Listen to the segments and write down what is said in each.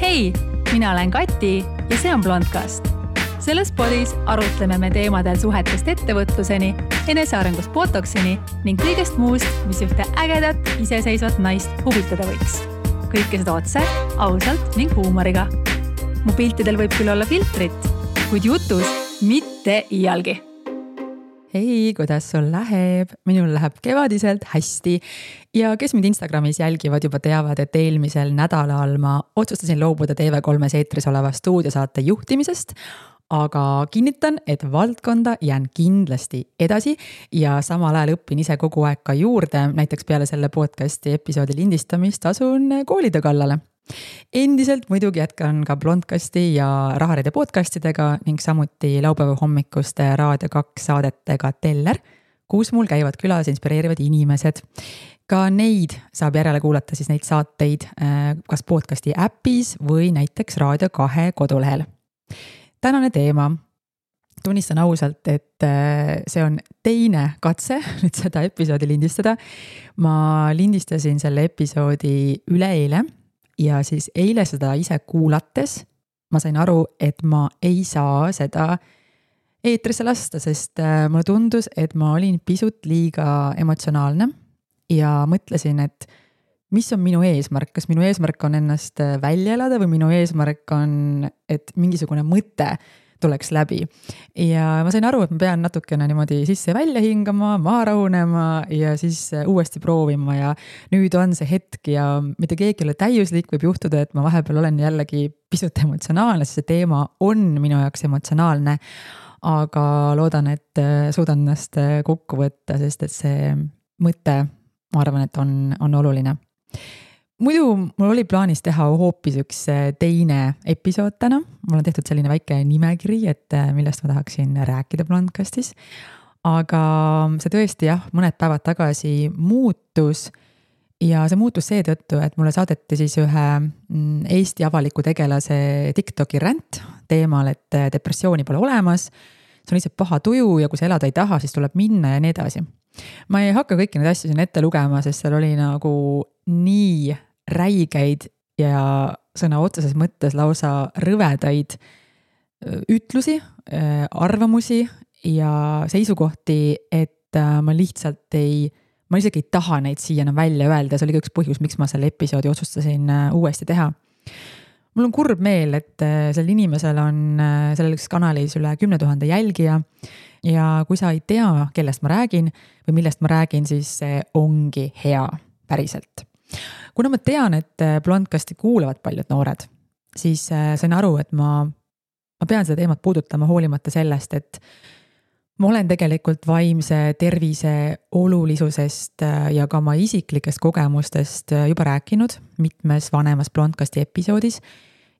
Hei, mina olen Kati ja see on Blondcast. Selles podis arutleme me teemadel suhetest ettevõtluseni, enesearengust botoksini ning kõigest muust, mis ühte ägedat, iseseisvat naist huvitada võiks. Kõike seda otse, ausalt ning huumoriga. Mu piltidel võib küll olla filtrit, kuid jutus mitte iialgi. Hei, kuidas sul läheb? Minul läheb kevadiselt hästi ja kes mind Instagramis jälgivad juba teavad, et eelmisel nädalal ma otsustasin loobuda TV3 eetris oleva stuudiosaate juhtimisest, aga kinnitan, et valdkonda jään kindlasti edasi ja samal ajal õpin ise kogu aeg ka juurde, näiteks peale selle podcasti episoodi lindistamist asun koolide kallale. Endiselt muidugi jätkan ka Blondcasti ja Rahareide podcastidega ning samuti laupäeva hommikuste Raadio 2 saadetega Teller, kus mul käivad külas inspireerivad inimesed. Ka neid saab järele kuulata siis neid saateid kas podcasti äpis või näiteks Raadio 2 kodulehel. Tänane teema. Tunnistan ausalt, et see on teine katse nüüd seda episoodi lindistada. Ma lindistasin selle episoodi üleeile. Ja siis eile seda ise kuulates ma sain aru, et ma ei saa seda eetrisse lasta, sest mulle tundus, et ma olin pisut liiga emotsionaalne ja mõtlesin, et mis on minu eesmärk, kas minu eesmärk on ennast välja elada või minu eesmärk on, et mingisugune mõte tuleks läbi. Ja ma sain aru, et ma pean natukene niimoodi sisse välja hingama, maha rahunema ja siis uuesti proovima ja nüüd on see hetk ja mitte keegi ei ole täiuslik, võib juhtuda, et ma vahepeal olen jällegi pisut emotsionaalne, sest see teema on minu jaoks emotsionaalne, aga loodan, et suudan ennast kokku võtta, sest et see mõte, ma arvan, et on oluline. Muidu mul oli plaanis teha hoopis üks teine episood täna. Mul on tehtud selline väike nimekiri, et millest ma tahaksin rääkida Blondcastis. Aga see tõesti mõned päevad tagasi muutus ja see muutus seetõttu, et mulle saadeti siis ühe Eesti avaliku tegelase TikToki ränd teemal, et depressiooni pole olemas. See on lihtsalt paha tuju ja kui sa elada ei taha, siis tuleb minna ja nii edasi. Ma ei hakka kõiki neid asju siin ette lugema, sest seal oli nagu nii räigeid ja sõna otseses mõttes lausa rõvedaid ütlusi, arvamusi ja seisukohti, et ma isegi ei taha neid siia enam välja öelda. See oli üks põhjus, miks ma selle episoodi otsustasin uuesti teha. Mul on kurb meel, et sellel inimesel on selles kanalis üle 10 000 jälgija ja kui sa ei tea, kellest ma räägin või millest ma räägin, siis see ongi hea päriselt. Kuna ma tean, et Blondcasti kuulavad paljud noored, siis sain aru, et ma pean seda teemat puudutama hoolimata sellest, et ma olen tegelikult vaimse tervise olulisusest ja ka oma isiklikest kogemustest juba rääkinud mitmes vanemas Blondcasti episoodis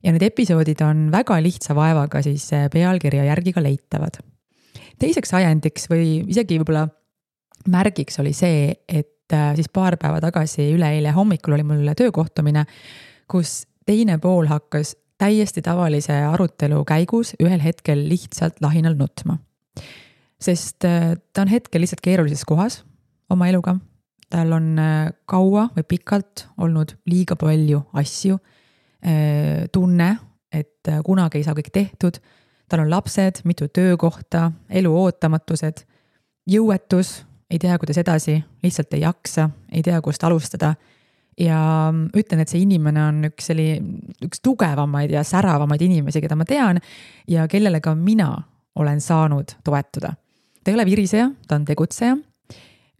ja need episoodid on väga lihtsa vaevaga siis pealkirja järgi ka leitavad. Teiseks ajendiks või isegi võib-olla märgiks oli see, et siis paar päeva tagasi üleeile hommikul oli mul töökohtumine, kus teine pool hakkas täiesti tavalise arutelu käigus ühel hetkel lihtsalt lahinal nutma. Sest ta on hetkel lihtsalt keerulises kohas oma eluga. Tal on kaua või pikalt olnud liiga palju asju, tunne, et kunagi ei saa kõik tehtud. Tal on lapsed, mitu töökohta, elu ootamatused, jõuetus, ei tea, kuidas edasi, lihtsalt ei jaksa, ei tea, kust alustada. Ja ütlen, et see inimene on üks tugevamaid ja säravamaid inimesi, keda ma tean ja kellele ka mina olen saanud toetuda. Ta ei ole viriseja, ta on tegutseja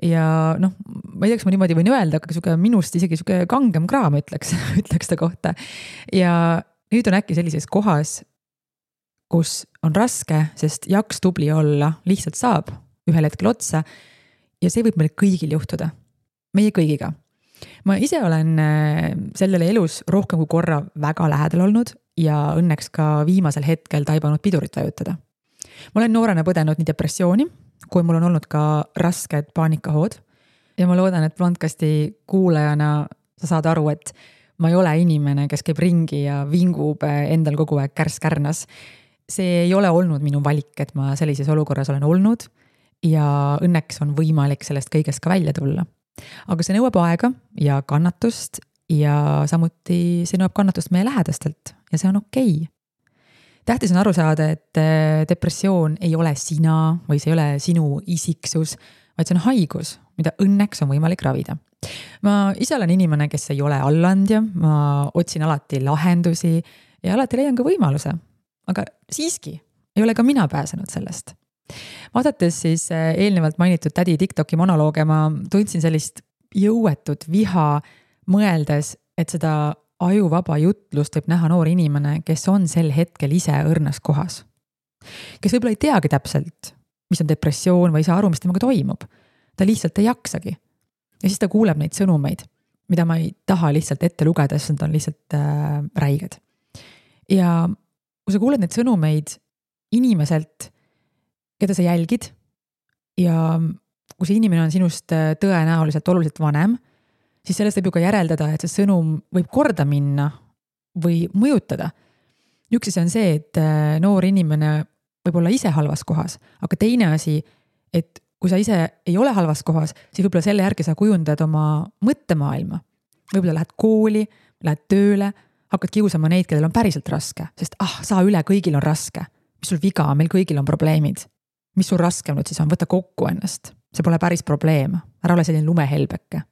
ja ma ei tea, kas ma niimoodi võin öelda, aga minust isegi kangem kraam ütleks ta kohta. Ja nüüd on äkki sellises kohas, kus on raske, sest jaks tubli olla lihtsalt saab ühel hetkel otsa ja see võib meil kõigil juhtuda, meie kõigiga. Ma ise olen sellele elus rohkem kui korra väga lähedal olnud ja õnneks ka viimasel hetkel taibanud pidurit vajutada. Ma olen noorena põdenud nii depressiooni, kui mul on olnud ka rasked paanikahood ja ma loodan, et Blondcasti kuulajana sa saad aru, et ma ei ole inimene, kes käib ringi ja vingub endal kogu aeg kärskärnas. See ei ole olnud minu valik, et ma sellises olukorras olen olnud ja õnneks on võimalik sellest kõigest ka välja tulla. Aga see nõuab aega ja kannatust ja samuti see nõuab kannatust meie lähedastelt ja see on okei. Tähtis on aru saada, et depressioon ei ole sina või see ei ole sinu isiksus, vaid see on haigus, mida õnneks on võimalik ravida. Ma ise olen inimene, kes ei ole allandja, ma otsin alati lahendusi ja alati leian ka võimaluse, aga siiski ei ole ka mina pääsenud sellest. Vaadates siis eelnevalt mainitud tädi TikToki monolooge, ma tundsin sellist jõuetut viha mõeldes, et seda ajuvaba jutlust võib näha noor inimene, kes on sel hetkel ise õrnas kohas. Kes võib-olla ei teagi täpselt, mis on depressioon või ei saa aru, mis temaga toimub. Ta lihtsalt ei jaksagi. Ja siis ta kuuleb neid sõnumeid, mida ma ei taha lihtsalt ette lugeda, sest nad on lihtsalt räiged. Ja kui sa kuuled neid sõnumeid inimeselt, keda sa jälgid ja kui see inimene on sinust tõenäoliselt oluliselt vanem, siis sellest võib ju ka järeldada, et see sõnum võib korda minna või mõjutada. Üks asi on see, et noor inimene võib olla ise halvas kohas, aga teine asi, et kui sa ise ei ole halvas kohas, siis võib-olla selle järgi sa kujundad oma mõttemaailma. Võib-olla lähed kooli, lähed tööle, hakkad kiusama neid, kellel on päriselt raske, sest saa üle, kõigil on raske. Mis sul viga, meil kõigil on probleemid. Mis sul raskem nüüd siis on, võta kokku ennast. See pole päris probleem, ära ole selline lumehelbeke.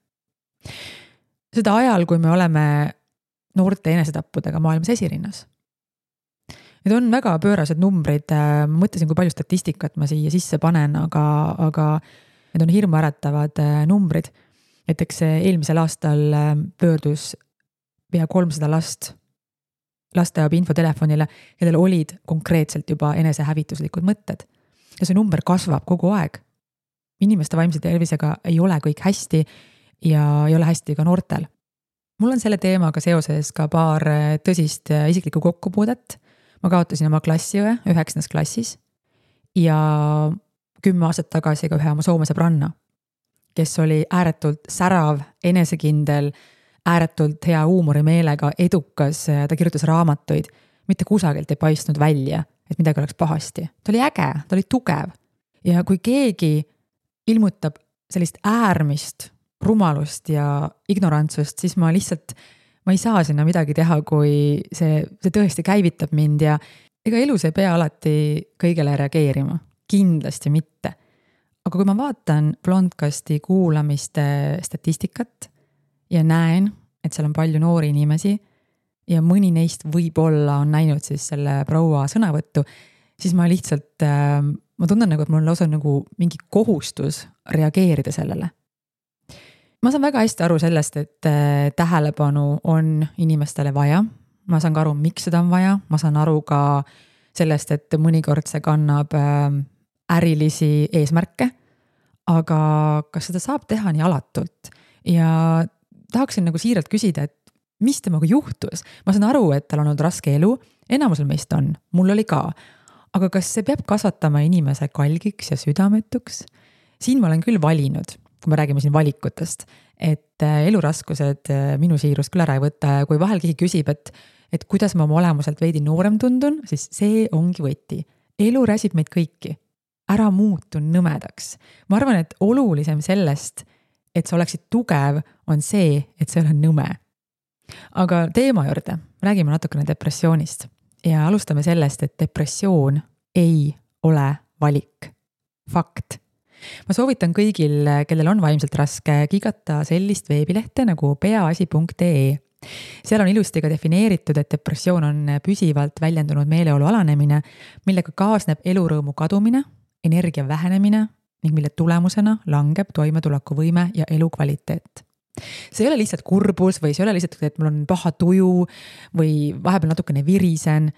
Seda ajal, kui me oleme noorte enesetappudega maailmas esirinnas. Need on väga pöörased numbrid, ma mõtlesin, kui palju statistikat ma siia sisse panen, aga need on hirmuäratavad numbrid. Näiteks eelmisel aastal pöördus pea 300 last lasteabi infotelefonile, kellel olid konkreetselt juba enesehävituslikud mõtted. Ja see number kasvab kogu aeg. Inimeste vaimse tervisega ei ole kõik hästi ja ei ole hästi ka noortel. Mul on selle teemaga seoses ka paar tõsist isiklikku kokkupuudet. Ma kaotasin oma klassiõe 9. klassis ja 10 aastat tagasi ka ühe oma Soome sõbranna, kes oli ääretult särav, enesekindel, ääretult hea huumorimeelega, edukas, ta kirjutas raamatuid, mitte kusagilt ei paistnud välja, et midagi oleks pahasti. Ta oli äge, ta oli tugev ja kui keegi ilmutab sellist äärmist rumalust ja ignorantsust, siis ma ei saa sinna midagi teha, kui see tõesti käivitab mind ja ega elus ei pea alati kõigele reageerima, kindlasti mitte. Aga kui ma vaatan Blondcasti kuulamiste statistikat ja näen, et seal on palju noori inimesi ja mõni neist võib-olla on näinud siis selle proua sõnavõttu, siis ma lihtsalt, ma tunnen nagu, et mul on lausa nagu mingi kohustus reageerida sellele. Ma saan väga hästi aru sellest, et tähelepanu on inimestele vaja. Ma saan ka aru, miks seda on vaja. Ma saan aru ka sellest, et mõnikord see kannab ärilisi eesmärke, aga kas seda saab teha nii alatult? Ja tahaksin nagu siiralt küsida, et mis temaga juhtus? Ma saan aru, et tal on olnud raske elu, enamusel meist on, mul oli ka. Aga kas see peab kasvatama inimese kalgiks ja südametuks? Siin ma olen küll valinud, kui me räägime siin valikutest, et eluraskused minu siirust küll ära ei võta ja kui vahel keegi küsib, et kuidas ma oma olemuselt veidi noorem tundun, siis see ongi võti. Elu räsib meid kõiki. Ära muutu nõmedaks. Ma arvan, et olulisem sellest, et sa oleksid tugev, on see, et sa ei ole nõme. Aga teema juurde, räägime natukene depressioonist ja alustame sellest, et depressioon ei ole valik. Fakt. Ma soovitan kõigil, kellel on vaimselt raske, kigata sellist veebilehte nagu peaasi.ee. Seal on ilusti ka defineeritud, et depressioon on püsivalt väljendunud meeleolu alanemine, millega kaasneb elurõõmu kadumine, energia vähenemine ning mille tulemusena langeb toimetulekuvõime ja elukvaliteet. See ei ole lihtsalt kurbus või see ei ole lihtsalt, et mul on paha tuju või vahepeal natukene virisen.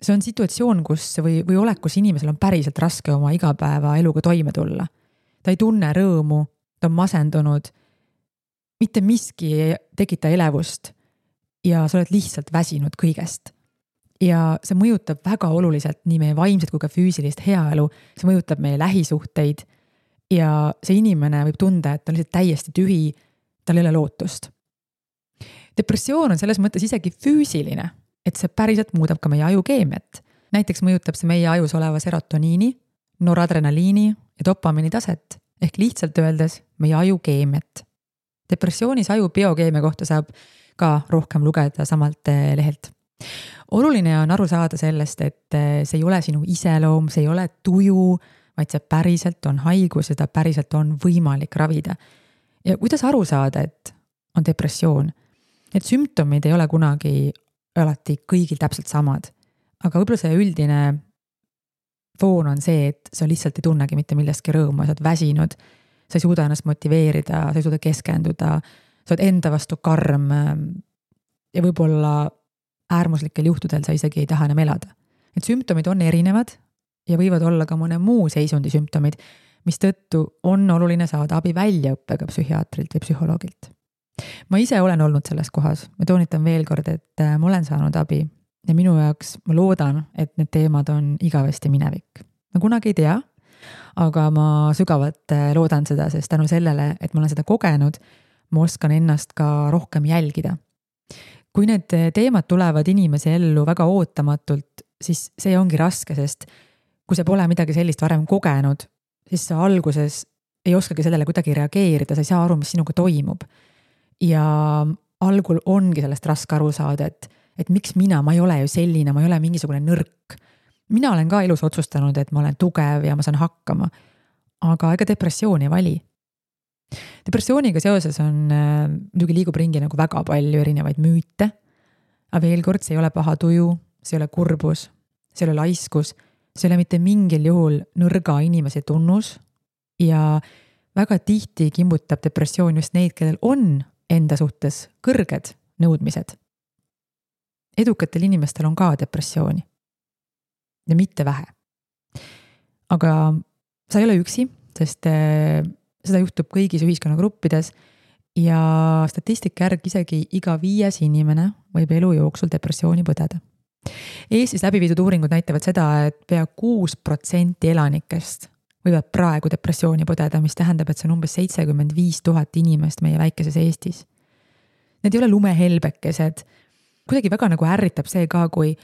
See on situatsioon, kus või olek, kus inimesel on päriselt raske oma igapäeva eluga toime tulla. Ta ei tunne rõõmu, ta on masendunud, mitte miski ei tekita elevust ja sa oled lihtsalt väsinud kõigest. Ja see mõjutab väga oluliselt nii meie vaimset kui ka füüsilist heaelu, see mõjutab meie lähisuhteid ja see inimene võib tunda, et ta on lihtsalt täiesti tühi, tal ei ole lootust. Depressioon on selles mõttes isegi füüsiline, et see päriselt muudab ka meie ajukeemiat. Näiteks mõjutab see meie ajus oleva serotoniini, noradrenaliini ja dopamiini taset, ehk lihtsalt öeldes meie ajukeemiat. Depressioonis aju biokeemia kohta saab ka rohkem lugeda samalt lehelt. Oluline on aru saada sellest, et see ei ole sinu iseloom, see ei ole tuju, vaid see päriselt on haigus ja seda päriselt on võimalik ravida. Ja kuidas aru saada, et on depressioon? Need sümptomid ei ole kunagi alati kõigil täpselt samad, aga võib-olla see üldine foon on see, et sa lihtsalt ei tunnegi mitte millestki rõõmu, sa oled väsinud, sa ei suuda ennast motiveerida, sa ei suuda keskenduda, sa oled enda vastu karm ja võib-olla äärmuslikel juhtudel sa isegi ei taha enam elada. Need sümptomid on erinevad ja võivad olla ka mõne muu seisundi sümptomid, mis tõttu on oluline saada abi väljaõppega psühhiaatrilt või psühholoogilt. Ma ise olen olnud selles kohas, ma toonitan veel kord, et ma olen saanud abi ja minu jaoks ma loodan, et need teemad on igavesti minevik. Ma kunagi ei tea, aga ma sügavalt loodan seda, sest tänu sellele, et ma olen seda kogenud, ma oskan ennast ka rohkem jälgida. Kui need teemad tulevad inimese ellu väga ootamatult, siis see ongi raske, sest kui sa pole midagi sellist varem kogenud, siis sa alguses ei oskagi sellele kuidagi reageerida, sa ei saa aru, mis sinuga toimub. Ja algul ongi sellest raske aru saada, et miks ma ei ole ju selline, ma ei ole mingisugune nõrk. Mina olen ka elus otsustanud, et ma olen tugev ja ma saan hakkama, aga ega depressiooni ei vali. Depressiooniga seoses on muidugi liigub ringi nagu väga palju erinevaid müüte, aga veel kord, see ei ole paha tuju, see ei ole kurbus, see ei ole laiskus, see ei ole mitte mingil juhul nõrga inimese tunnus ja väga tihti kimbutab depressioon just neid, kellel on enda suhtes kõrged nõudmised. Edukatel inimestel on ka depressiooni ja mitte vähe. Aga sa ei ole üksi, sest seda juhtub kõigis ühiskonnagruppides ja statistika järgi isegi iga 5. inimene võib elu jooksul depressiooni põdeda. Eestis läbiviidud uuringud näitavad seda, et pea 6% elanikest võivad praegu depressiooni põdeda, mis tähendab, et see on umbes 75,000 inimest meie väikeses Eestis. Need ei ole lumehelbekesed. Kuidagi väga nagu ärritab see ka, kui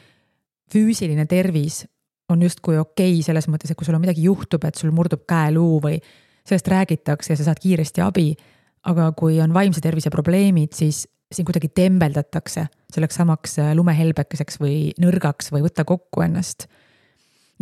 füüsiline tervis on justkui okei selles mõttes, et kui sul on midagi juhtub, et sul murdub käeluu või sellest räägitakse ja sa saad kiiresti abi, aga kui on vaimse tervise probleemid, siis siin kuidagi tembeldatakse selleks samaks lumehelbekeseks või nõrgaks või võtta kokku ennast.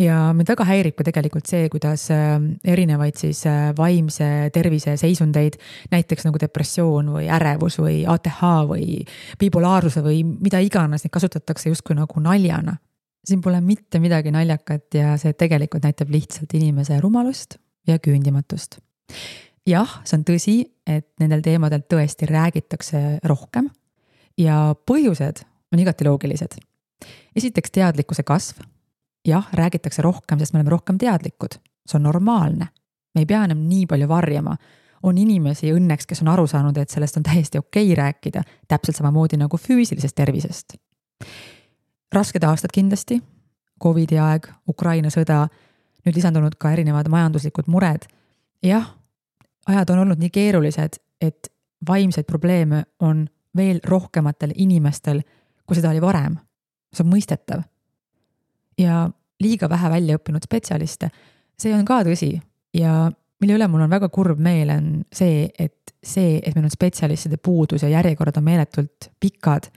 Ja mind väga häirib ka tegelikult see, kuidas erinevaid siis vaimse tervise seisundeid, näiteks nagu depressioon või ärevus või ATH või bipolaarsuse või mida iganes, neid kasutatakse justkui nagu naljana. Siin pole mitte midagi naljakat ja see tegelikult näitab lihtsalt inimese rumalust ja küündimatust. Jah, see on tõsi, et nendel teemadel tõesti räägitakse rohkem ja põhjused on igati loogilised. Esiteks teadlikkuse kasv. Jah, räägitakse rohkem, sest me oleme rohkem teadlikud. See on normaalne. Me ei pea enam nii palju varjama. On inimesi õnneks, kes on aru saanud, et sellest on täiesti okei rääkida, täpselt samamoodi nagu füüsilisest tervisest. Rasked aastad kindlasti, Covidi aeg, Ukraina sõda, nüüd lisandunud ka erinevad majanduslikud mured. Jah, ajad on olnud nii keerulised, et vaimseid probleeme on veel rohkematel inimestel, kui seda oli varem. See on mõistetav. Ja liiga vähe välja õppinud spetsialiste, see on ka tõsi ja mille üle mul on väga kurb meel on see, et meil on spetsialistide puudus ja järjekorrad on meeletult pikad,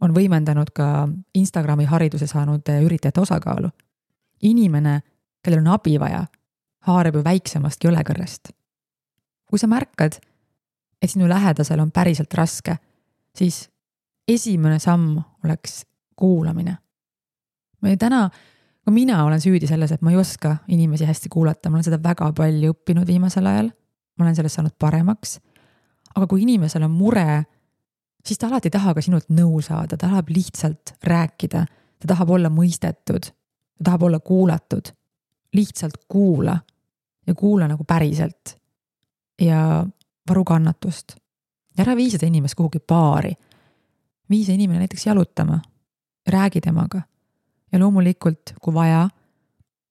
on võimendanud ka Instagrami hariduse saanud üritajate osakaalu. Inimene, kellel on abi vaja, haarab ju väiksemast jõlekõrrest. Kui sa märkad, et sinu lähedasel on päriselt raske, siis esimene samm oleks kuulamine. Mina olen süüdi selles, et ma ei oska inimesi hästi kuulata, ma olen seda väga palju õppinud viimasel ajal, ma olen sellest saanud paremaks, aga kui inimesel on mure, siis ta alati taha ka sinult nõu saada, ta tahab lihtsalt rääkida, ta tahab olla mõistetud, ta tahab olla kuulatud, lihtsalt kuula ja kuula nagu päriselt ja varu kannatust. Ära vii seda inimest kuhugi baari, vii see inimene näiteks jalutama, räägi temaga. Ja loomulikult, kui vaja,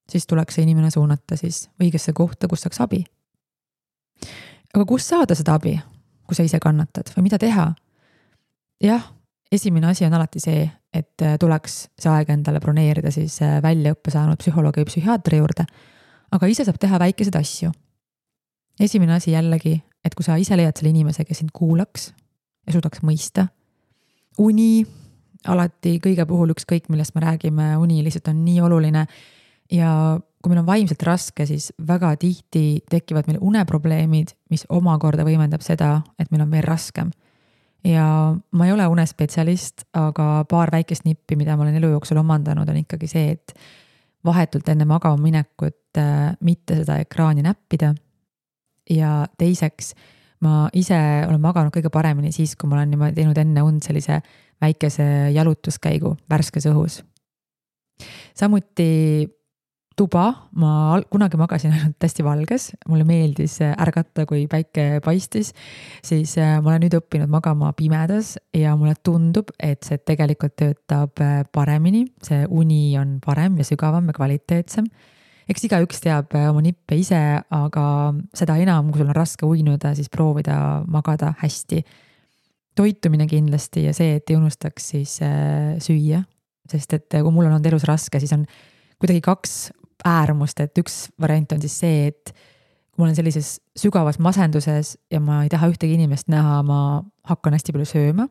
siis tuleks see inimene suunata siis õigesse kohta, kus saaks abi. Aga kus saada seda abi, kui sa ise kannatad või mida teha? Jah, esimene asi on alati see, et tuleks see aeg endale broneerida siis väljaõppe saanud psühholoogi või psühhiaatri juurde, aga ise saab teha väikeseid asju. Esimene asi jällegi, et kui sa ise leiad selle inimese, kes sind kuulaks ja suudaks mõista. Uni, alati kõige puhul ükskõik, millest me räägime, uni lihtsalt on nii oluline. Ja kui meil on vaimselt raske, siis väga tihti tekivad meil uneprobleemid, mis omakorda võimendab seda, et meil on veel raskem. Ja ma ei ole unespetsialist, aga paar väikest nippi, mida ma olen elu jooksul omandanud, on ikkagi see, et vahetult enne magama minekut mitte seda ekraani näppida. Ja teiseks, ma ise olen maganud kõige paremini siis, kui ma olen niimoodi teinud enne und sellise väikese jalutuskäigu värskes õhus. Samuti tuba, ma kunagi magasin ainult hästi valges, mulle meeldis ärgata, kui päike paistis, siis ma olen nüüd õppinud magama pimedas ja mulle tundub, et see tegelikult töötab paremini, see uni on parem ja sügavam ja kvaliteetsem. Eks igaüks teab oma nippe ise, aga seda enam, kui sul on raske uinuda, siis proovida magada hästi. Toitumine kindlasti ja see, et ei unustaks siis süüa, sest et kui mul on olnud elus raske, siis on kuidagi kaks äärmust, et üks variant on siis see, et kui ma olen sellises sügavas masenduses ja ma ei taha ühtegi inimest näha, ma hakkan hästi palju sööma.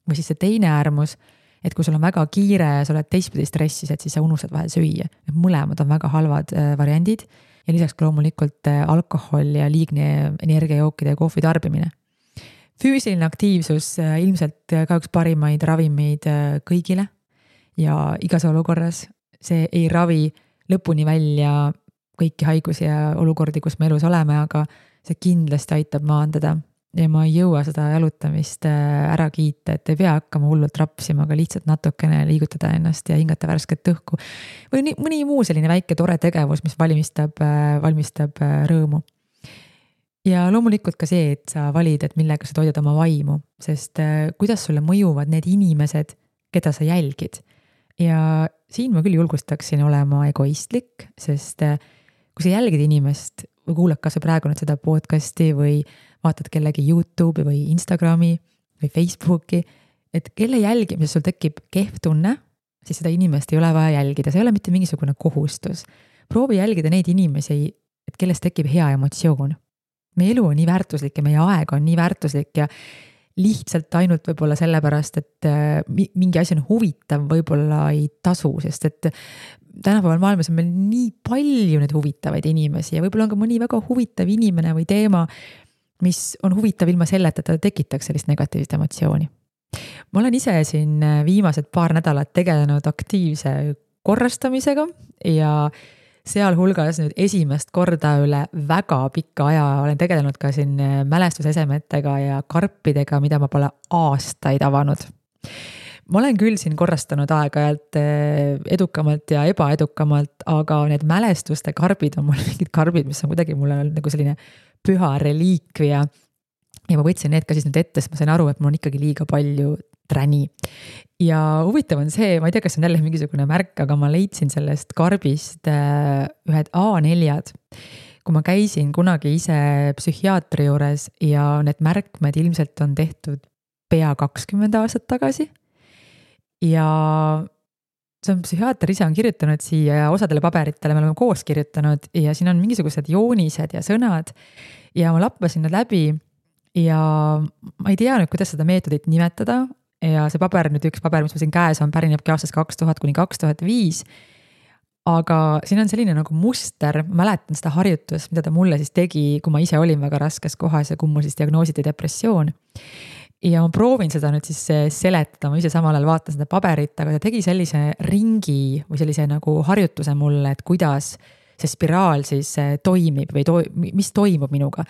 Või siis see teine äärmus, et kui sul on väga kiire ja sa oled teistpidi stressis, et siis sa unustad vahel süüa. Mõlemad on väga halvad variandid ja lisaks ka loomulikult alkohol ja liigne energiajookide ja kohvi tarbimine. Füüsiline aktiivsus ilmselt ka üks parimaid ravimeid kõigile ja igas olukorras. See ei ravi lõpuni välja kõiki haigusi ja olukordi, kus me elus oleme, aga see kindlasti aitab maandada ja ma ei jõua seda jalutamist ära kiita, et ei pea hakkama hullult rapsima, aga lihtsalt natukene liigutada ennast ja hingata värsket õhku. Või mõni muu selline väike tore tegevus, mis valmistab rõõmu. Ja loomulikult ka see, et sa valid, et millega sa toidad oma vaimu, sest kuidas sulle mõjuvad need inimesed, keda sa jälgid. Ja siin ma küll julgustaksin olema egoistlik, sest kui sa jälgid inimest või kuulad kas või praegu nüüd seda podcasti või vaatad kellegi YouTube'i või Instagrami või Facebooki, et kelle jälgimises sul tekib kehv tunne, siis seda inimest ei ole vaja jälgida, see ei ole mitte mingisugune kohustus. Proovi jälgida neid inimesi, et kellest tekib hea emotsioon. Meie elu on nii väärtuslik ja meie aeg on nii väärtuslik ja lihtsalt ainult võib-olla sellepärast, et mingi asi on huvitav, võib-olla ei tasu, sest et tänapäeval maailmas on meil nii palju neid huvitavaid inimesi ja võib-olla on ka mõni väga huvitav inimene või teema, mis on huvitav ilma selleta, et ta tekitaks sellist negatiivset emotsiooni. Ma olen ise siin viimased paar nädalat tegelenud aktiivse korrastamisega ja sealhulgas nüüd esimest korda üle väga pikka aja olen tegelenud ka siin mälestusesemetega ja karpidega, mida ma pole aastaid avanud. Ma olen küll siin korrastanud aeg-ajalt edukamalt ja ebaedukamalt, aga need mälestuste karbid on mul mingid karbid, mis on kuidagi mulle nagu selline püha reliikvia. Ja ma võtsin need ka siis nüüd ette, sest ma sain aru, et mul on ikkagi liiga palju träni. Ja huvitav on see, ma ei tea, kas on jälle mingisugune märk, aga ma leidsin sellest karbist ühed A4-d. Kui ma käisin kunagi ise psühhiaatri juures ja need märkmed ilmselt on tehtud pea 20 aastat tagasi. Ja see on psühhiaater ise on kirjutanud siia ja osadele paberitele me oleme koos kirjutanud ja siin on mingisugused joonised ja sõnad ja ma lappasin nad läbi ja ma ei tea nüüd, kuidas seda meetodit nimetada. Ja see paber, nüüd üks paber, mis ma siin käes on, pärinebki aastast 2000–2005, aga siin on selline nagu muster, ma mäletan seda harjutust, mida ta mulle siis tegi, kui ma ise olin väga raskes kohas ja kui mul siis diagnoositi depressioon. Ja ma proovin seda nüüd siis seletada, ma ise samal ajal vaatan seda paberit, aga ta tegi sellise ringi või sellise nagu harjutuse mulle, et kuidas see spiraal siis toimib või mis toimub minuga.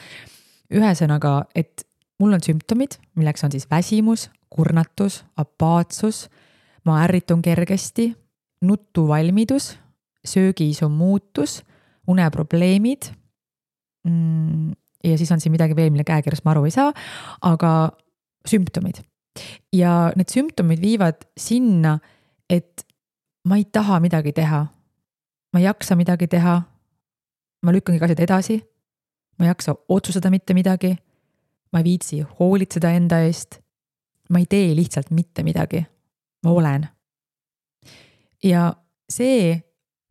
Ühesõnaga, et mul on sümptomid, milleks on siis väsimus, kurnatus, apaatsus, ma ärritun kergesti, nutuvalmidus, söögiisu muutus, uneprobleemid ja siis on siin midagi veel, mille käekirjast ma aru ei saa, aga sümptomid. Ja need sümptomid viivad sinna, et ma ei taha midagi teha, ma ei jaksa midagi teha, ma lükkangi asjad edasi, ma ei jaksa otsustada mitte midagi, ma ei viitsi hoolitseda enda eest, ma ei tee lihtsalt mitte midagi, ma olen. Ja see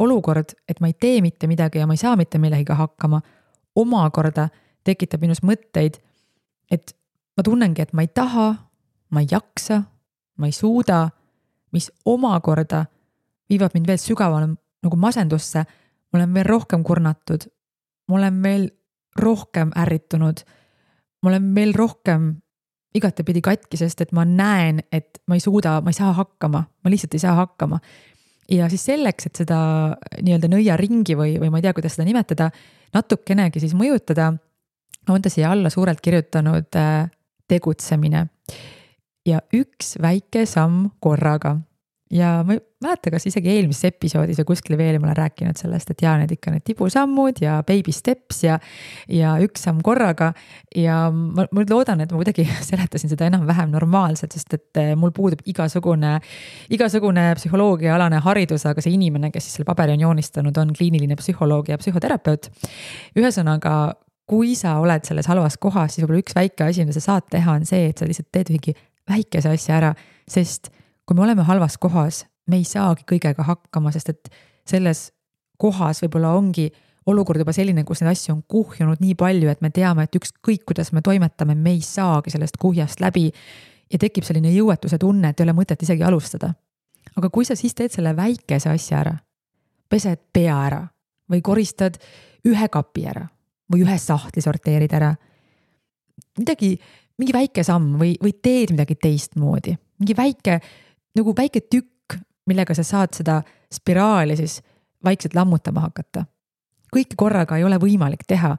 olukord, et ma ei tee mitte midagi ja ma ei saa mitte millegiga hakkama, omakorda tekitab minus mõtteid, et ma tunnengi, et ma ei taha, ma ei jaksa, ma ei suuda, mis omakorda viivad mind veel sügavale nagu masendusse, ma olen veel rohkem kurnatud, ma olen veel rohkem ärritunud, ma olen veel rohkem igatepidi katki, sest et ma näen, et ma ei suuda, ma ei saa hakkama, ma lihtsalt ei saa hakkama. Ja siis selleks, et seda nii-öelda nõiaringi või ma ei tea, kuidas seda nimetada, natukenegi siis mõjutada, on ta siia alla suurelt kirjutanud tegutsemine ja üks väike samm korraga. Ja ma ei mäleta, kas isegi eelmises episoodis ja kuskil veel ma olen rääkinud sellest, et need ikka need tibusammud ja baby steps ja üks samm korraga. Ja ma loodan, et ma kuidagi seletasin seda enam-vähem normaalselt, sest et mul puudub igasugune psühholoogiaalane haridus, aga see inimene, kes siis selle paberi on joonistanud, on kliiniline psühholoog ja psühhoterapeut. Ühesõnaga, kui sa oled selles halvas kohas, siis võib-olla üks väike asi, mida sa saad teha, on see, et sa lihtsalt teed ühegi väikese asja ära, sest kui me oleme halvas kohas, me ei saagi kõigega hakkama, sest et selles kohas võib-olla ongi olukord juba selline, kus neid asju on kuhjunud nii palju, et me teame, et ükskõik kuidas me toimetame, me ei saagi sellest kuhjast läbi ja tekib selline jõuetuse tunne, et ei ole mõtet isegi alustada. Aga kui sa siis teed selle väikese asja ära, pesed pea ära või koristad ühe kapi ära või ühe sahtli sorteerid ära, mingi väike samm või teed midagi teistmoodi, mingi väike tükk, millega sa saad seda spiraali siis vaikselt lammutama hakata. Kõike korraga ei ole võimalik teha,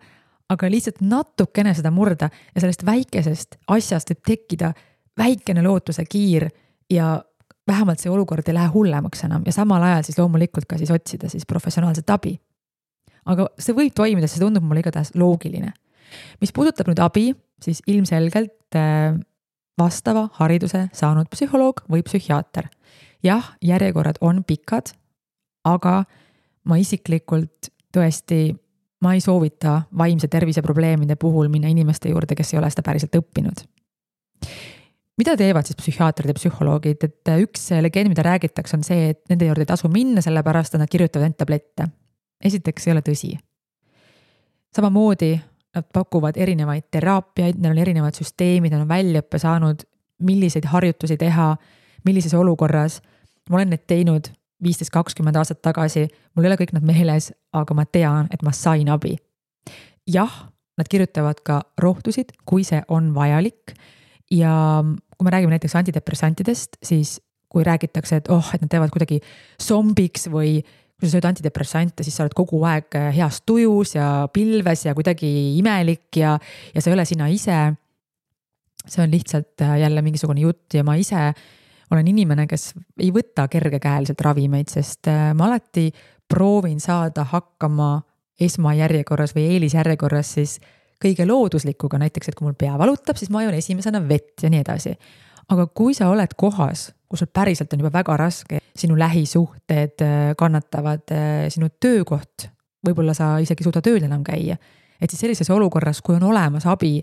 aga lihtsalt natukene seda murda ja sellest väikesest asjast võib tekkida väikene lootuse kiir ja vähemalt see olukord ei lähe hullemaks enam ja samal ajal siis loomulikult ka siis otsida siis professionaalset abi. Aga see võib toimida, see tundub mulle igatahes loogiline. Mis puudutab nüüd abi, siis ilmselgelt vastava hariduse saanud psühholoog või psühhiaater. Jah, järjekorrad on pikad, aga ma isiklikult tõesti, ma ei soovita vaimse tervise probleemide puhul minna inimeste juurde, kes ei ole seda päriselt õppinud. Mida teevad siis psühhiaatrid ja psühholoogid? Et üks legend, mida räägitakse, on see, et nende juurde ei tasu minna, sellepärast et nad kirjutavad end tablette. Esiteks ei ole tõsi. Samamoodi nad pakuvad erinevaid teraapiaid, neil on erinevad süsteemid, nad on väljaõppe saanud, milliseid harjutusi teha, millises olukorras. Ma olen need teinud 15-20 aastat tagasi, mul ei ole kõik nad meeles, aga ma tean, et ma sain abi. Jah, nad kirjutavad ka rohtusid, kui see on vajalik. Ja kui me räägime näiteks antidepressantidest, siis kui räägitakse, et nad teevad kuidagi zombiks või kui sa sööd antidepressante, siis sa oled kogu aeg heas tujus ja pilves ja kuidagi imelik ja sa ei ole sina ise. See on lihtsalt jälle mingisugune jutt ja ma ise olen inimene, kes ei võta kergekäeliselt ravimeid, sest ma alati proovin saada hakkama esmajärjekorras või eelisjärjekorras siis kõige looduslikuga, näiteks, et kui mul pea valutab, siis ma joon esimesena vett ja nii edasi. Aga kui sa oled kohas, kus sul päriselt on juba väga raske, sinu lähisuhted kannatavad, sinu töökoht, võib-olla sa isegi suuda tööl enam käia, et siis sellises olukorras, kui on olemas abi,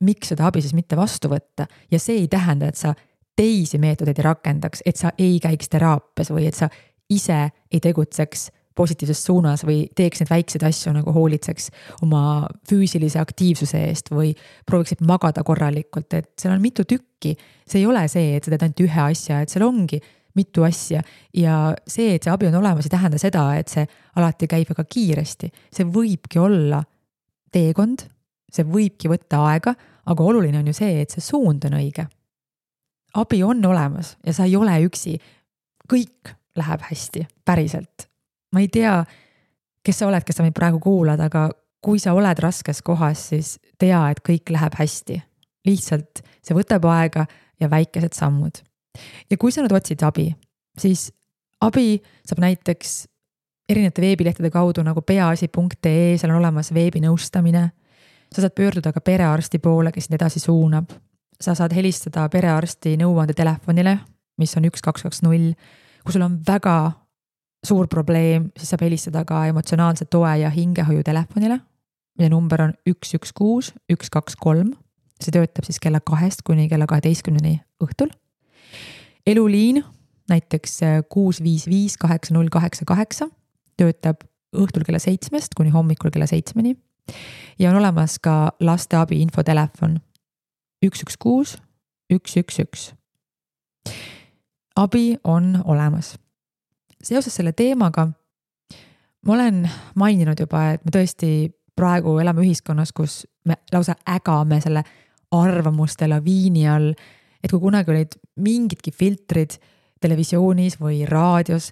miks seda abi siis mitte vastu võtta ja see ei tähenda, et sa teisi meetodeid ei rakendaks, et sa ei käiks teraapias või et sa ise ei tegutseks positiivses suunas või teeks neid väikseid asju nagu hoolitseks oma füüsilise aktiivsuse eest või prooviksid magada korralikult, et seal on mitu tükki. See ei ole see, et sa teed ainult ühe asja, et seal ongi mitu asja ja see, et see abi on olemas, ei tähenda seda, et see alati käib väga kiiresti. See võibki olla teekond, see võibki võtta aega, aga oluline on ju see, et see suund on õige. Abi on olemas ja sa ei ole üksi. Kõik läheb hästi, päriselt. Ma ei tea, kes sa oled, kes sa meid praegu kuulad, aga kui sa oled raskes kohas, siis tea, et kõik läheb hästi. Lihtsalt see võtab aega ja väikesed sammud. Ja kui sa nüüd otsid abi, siis abi saab näiteks erinevate veebilehtede kaudu nagu peaasi.ee, seal on olemas veebinõustamine. Sa saad pöörduda ka perearsti poole, kes edasi suunab. Sa saad helistada perearsti nõuande telefonile, mis on 1220, kui sul on väga suur probleem, siis saab helistada ka emotsionaalse toe ja hingehoiu telefonile, mille number on 116 123. See töötab siis kella 2 kuni kella 12 õhtul. Eluliin, näiteks 655 8088, töötab õhtul kella 7 kuni hommikul kella 7. Ja on olemas ka lasteabi infotelefon, 116 111. Abi on olemas. Seoses selle teemaga ma olen maininud juba, et me tõesti praegu elame ühiskonnas, kus me lausa ägame selle arvamuste laviini all, et kui kunagi olid mingidki filtrid televisioonis või raadios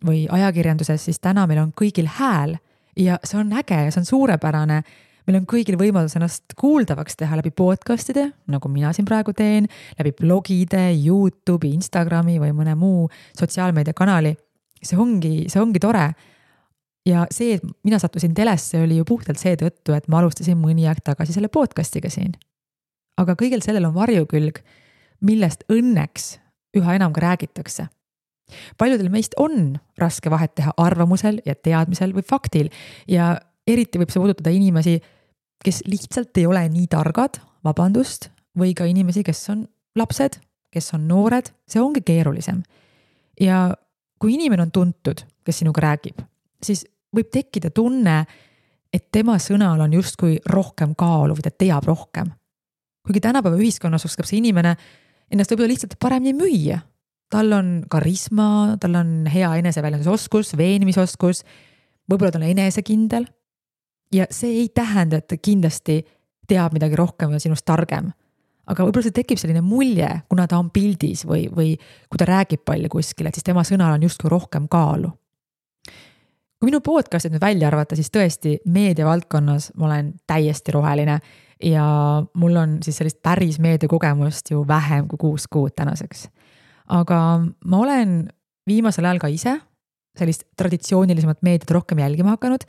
või ajakirjanduses, siis täna meil on kõigil hääl ja see on äge ja see on suurepärane. Meil on kõigil võimalus ennast kuuldavaks teha läbi podcastide, nagu mina siin praegu teen, läbi blogide, YouTube'i, Instagrami või mõne muu sotsiaalmeediakanali. See ongi tore. Ja see, et mina sattusin telesse, oli ju puhtalt seetõttu, et ma alustasin mõni aeg tagasi selle podcastiga siin. Aga kõigil sellel on varjukülg, millest õnneks üha enam ka räägitakse. Paljudel meist on raske vahet teha arvamusel ja teadmisel või faktil ja eriti võib see puudutada inimesi, kes lihtsalt ei ole nii targad, vabandust, või ka inimesi, kes on lapsed, kes on noored, see ongi keerulisem. Ja kui inimene on tuntud, kes sinuga räägib, siis võib tekkida tunne, et tema sõnal on justkui rohkem kaalu või ta teab rohkem. Kuigi tänapäeva ühiskonnas oskab see inimene ennast võib-olla lihtsalt paremini müüa. Tal on karisma, tal on hea eneseväljendusoskus, veenmisoskus, võib-olla ta on enesekindel. Ja see ei tähenda, et ta kindlasti teab midagi rohkem ja sinust targem. Aga võib-olla see tekib selline mulje, kuna ta on pildis või kui ta räägib palju kuskil, et siis tema sõnal on justkui rohkem kaalu. Kui minu podcastit nüüd välja arvata, siis tõesti meediavaldkonnas ma olen täiesti roheline ja mul on siis sellist päris meediakogemust ju vähem kui 6 kuud tänaseks. Aga ma olen viimasel ajal ka ise sellist traditsioonilisemat meediat rohkem jälgima hakanud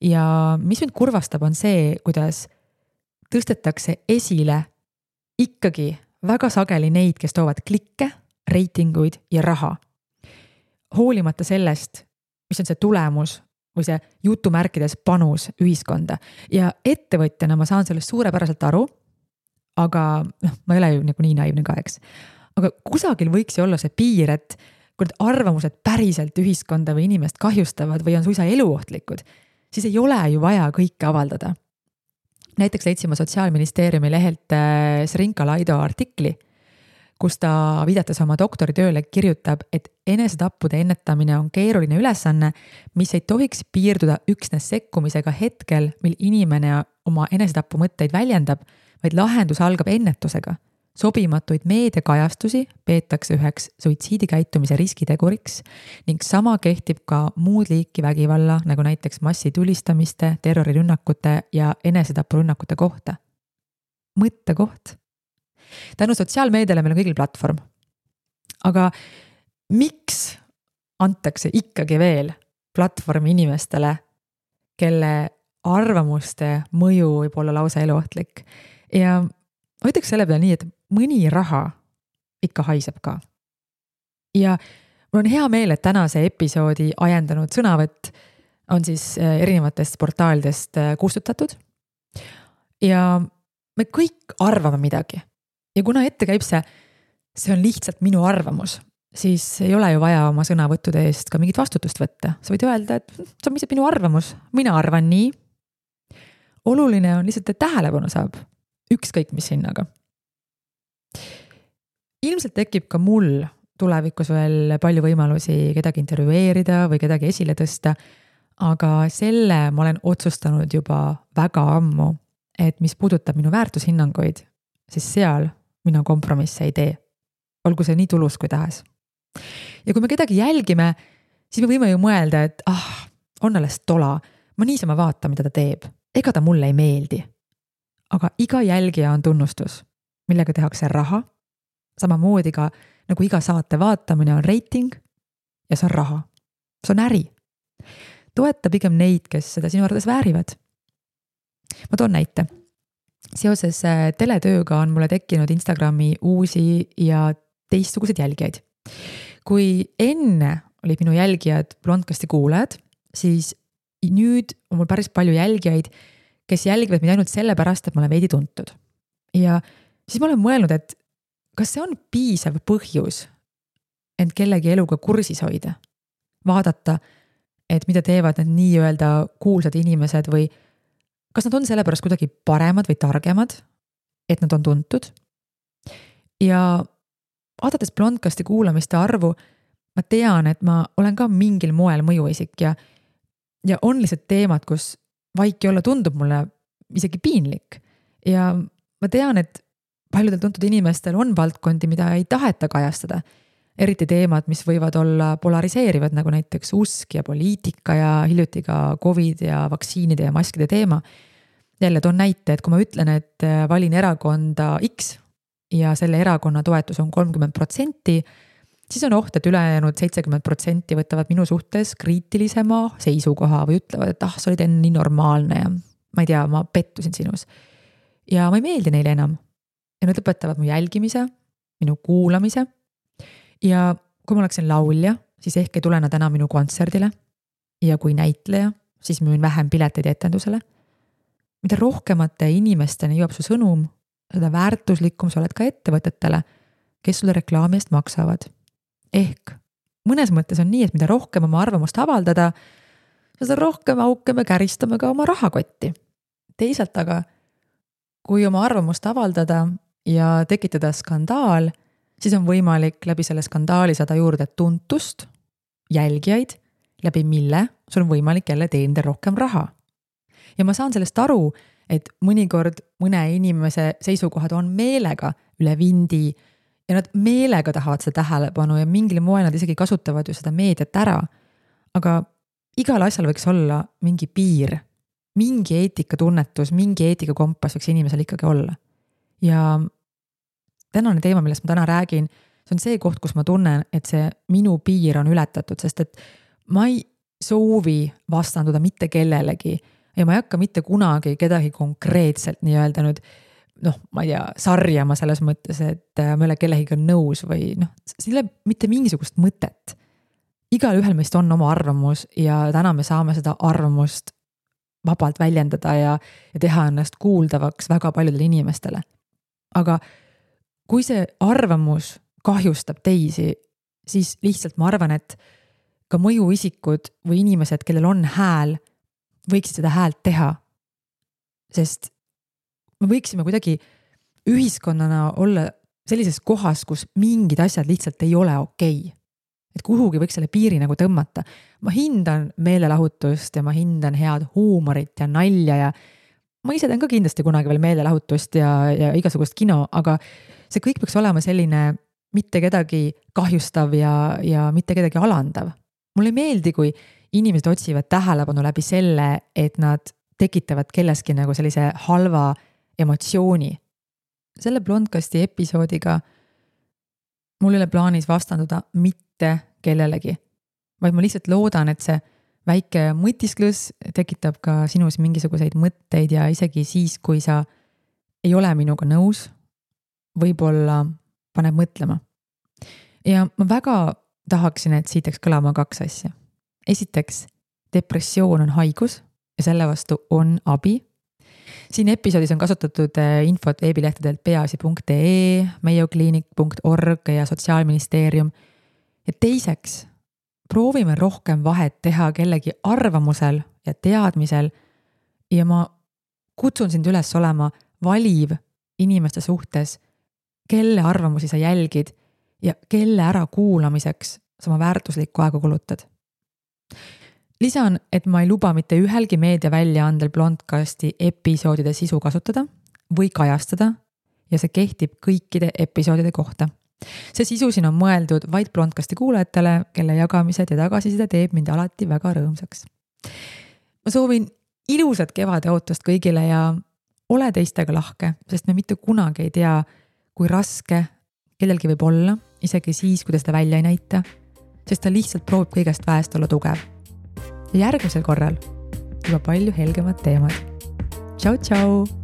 ja mis mind kurvastab on see, kuidas tõstetakse esile ikkagi väga sageli neid, kes toovad klikke, reitinguid ja raha. Hoolimata sellest, mis on see tulemus või see jutumärkides panus ühiskonda. Ja ettevõtjana ma saan sellest suurepäraselt aru, aga ma ei ole ju nii naiivne ka, eks. Aga kusagil võiks ju olla see piir, et kui need arvamused päriselt ühiskonda või inimest kahjustavad või on suisa eluohtlikud, siis ei ole ju vaja kõike avaldada. Näiteks leidsime Sotsiaalministeeriumi lehelt Srinka Laido artikli, kus ta viidates oma doktoritööle kirjutab, et enesetappude ennetamine on keeruline ülesanne, mis ei tohiks piirduda üksnes sekkumisega hetkel, mil inimene oma enesetapu mõtteid väljendab, vaid lahendus algab ennetusega. Sobimatuid meediakajastusi peetakse üheks suitsiidikäitumise riskiteguriks ning sama kehtib ka muud liiki vägivalla, nagu näiteks massitulistamiste, terrorirünnakute ja enesetapurünnakute kohta. Mõttekoht. Tänu sotsiaalmeediale meil on kõigil platvorm. Aga miks antakse ikkagi veel platvormi inimestele, kelle arvamuste mõju võib olla lausa eluohtlik? Ja ma ütleks selle peale nii, et mõni raha ikka haiseb ka. Ja mul on hea meel, et tänase episoodi ajendanud sõnavõtt on siis erinevatest portaalidest kustutatud. Ja me kõik arvame midagi. Ja kuna ette käib see on lihtsalt minu arvamus, siis ei ole ju vaja oma sõnavõttude eest ka mingit vastutust võtta. Sa võid öelda, et see on lihtsalt minu arvamus. Mina arvan nii. Oluline on lihtsalt, et tähelepanu saab. Ükskõik mis hinnaga. Ilmselt tekib ka mul tulevikus veel palju võimalusi kedagi intervjueerida või kedagi esile tõsta, aga selle ma olen otsustanud juba väga ammu, et mis puudutab minu väärtushinnanguid, siis seal mina kompromisse ei tee. Olgu see nii tulus kui tahes. Ja kui me kedagi jälgime, siis me võime ju mõelda, et on alles tola, ma niisama vaatan, mida ta teeb. Ega ta mulle ei meeldi. Aga iga jälgija on tunnustus, millega tehakse raha, samamoodi ka nagu iga saate vaatamine on reiting ja see on raha. See on äri. Toeta pigem neid, kes seda sinu arvates väärivad. Ma toon näite. Seoses teletööga on mulle tekkinud Instagrami uusi ja teistsuguseid jälgijaid. Kui enne olid minu jälgijad Blondcasti kuulajad, siis nüüd on mul päris palju jälgijaid, kes jälgivad mind ainult selle pärast, et ma olen veidi tuntud. Ja siis ma olen mõelnud, et kas see on piisav põhjus end kellegi eluga kursis hoida? Vaadata, et mida teevad need nii-öelda kuulsad inimesed või kas nad on sellepärast kuidagi paremad või targemad, et nad on tuntud ja vaadates Blondcasti kuulamiste arvu, ma tean, et ma olen ka mingil moel mõjuisik ja on lihtsalt teemad, kus vaiki olla tundub mulle isegi piinlik. Ja ma tean, et paljudel tuntud inimestel on valdkondi, mida ei taheta kajastada. Eriti teemad, mis võivad olla polariseerivad, nagu näiteks usk ja poliitika ja hiljuti ka COVID ja vaktsiinide ja maskide teema. Jälle toon näite, et kui ma ütlen, et valin erakonda X ja selle erakonna toetus on 30%, siis on oht, et ülejäänud 70% võtavad minu suhtes kriitilisema seisukoha või ütlevad, et sa olid enne nii normaalne ja ma ei tea, ma pettusin sinus. Ja ma ei meeldi neile enam. Ja nad lõpetavad mu jälgimise, minu kuulamise. Ja kui ma oleksin laulja, siis ehk ei tule nad enam minu kontserdile. Ja kui näitleja, siis müün vähem pileteid etendusele. Mida rohkemate inimesteni jõuab su sõnum, seda väärtuslikum sa oled ka ettevõtetele, kes sulle reklaami eest maksavad. Ehk mõnes mõttes on nii, et mida rohkem oma arvamust avaldada, seda rohkem auke me käristame ka oma rahakotti. Teisalt aga, kui oma arvamust avaldada ja tekitada skandaal, siis on võimalik läbi selle skandaali saada juurde tuntust, jälgijaid, läbi mille sul on võimalik jälle teenida rohkem raha. Ja ma saan sellest aru, et mõnikord mõne inimese seisukohad on meelega üle vindi ja nad meelega tahavad seda tähelepanu ja mingil moel nad isegi kasutavad ju seda meediat ära. Aga igal asjal võiks olla mingi piir, mingi eetikatunnetus, mingi eetikakompass võiks inimesel ikkagi olla. Ja tänane teema, millest ma täna räägin, see on see koht, kus ma tunnen, et see minu piir on ületatud, sest et ma ei soovi vastanduda mitte kellelegi ja ma ei hakka mitte kunagi kedagi konkreetselt nii öelda nüüd, ma ei tea, sarjama selles mõttes, et ma ei ole kellegiga nõus või siin ei ole mitte mingisugust mõtet. Igal ühel meist on oma arvamus ja täna me saame seda arvamust vabalt väljendada ja teha ennast kuuldavaks väga paljudele inimestele. Aga kui see arvamus kahjustab teisi, siis lihtsalt ma arvan, et ka mõjuisikud või inimesed, kellel on hääl, võiksid seda häält teha. Sest me võiksime kuidagi ühiskonnana olla sellises kohas, kus mingid asjad lihtsalt ei ole okei. Et kuhugi võiks selle piiri nagu tõmmata. Ma hindan meelelahutust ja ma hindan head huumorit ja nalja ja ma ise teen ka kindlasti kunagi veel meelelahutust ja igasugust kino, aga see kõik peaks olema selline mitte kedagi kahjustav ja mitte kedagi alandav. Mulle ei meeldi, kui inimesed otsivad tähelepanu läbi selle, et nad tekitavad kelleski nagu sellise halva emotsiooni. Selle Blondcasti episoodiga mul ei ole plaanis vastanduda mitte kellelegi, vaid ma lihtsalt loodan, et see väike mõtisklus tekitab ka sinus mingisuguseid mõtteid ja isegi siis, kui sa ei ole minuga nõus, võib-olla paneb mõtlema. Ja ma väga tahaksin, et siit kõlama 2 asja. Esiteks, depressioon on haigus ja selle vastu on abi. Siin episoodis on kasutatud infot veebilehtedelt peaasi.ee, meiokliinik.org ja Sotsiaalministeerium. Ja teiseks, proovime rohkem vahet teha kellegi arvamusel ja teadmisel ja ma kutsun sind üles olema valiv inimeste suhtes, kelle arvamusi sa jälgid ja kelle ära kuulamiseks sa oma väärtuslikku aega kulutad. Lisan, et ma ei luba mitte ühelgi meediaväljaandel Blondcasti episoodide sisu kasutada või kajastada ja see kehtib kõikide episoodide kohta. See sisu siin on mõeldud vaid Blondcasti kuulajatele, kelle jagamised ja tagasiside teeb mind alati väga rõõmsaks. Ma soovin ilusat kevade ootust kõigile ja ole teistega lahke, sest me mitte kunagi ei tea, kui raske kellelgi võib olla, isegi siis, kui ta seda välja ei näita, sest ta lihtsalt proovib kõigest väest olla tugev. Ja järgmisel korral juba palju helgemad teemad. Tšau, tšau!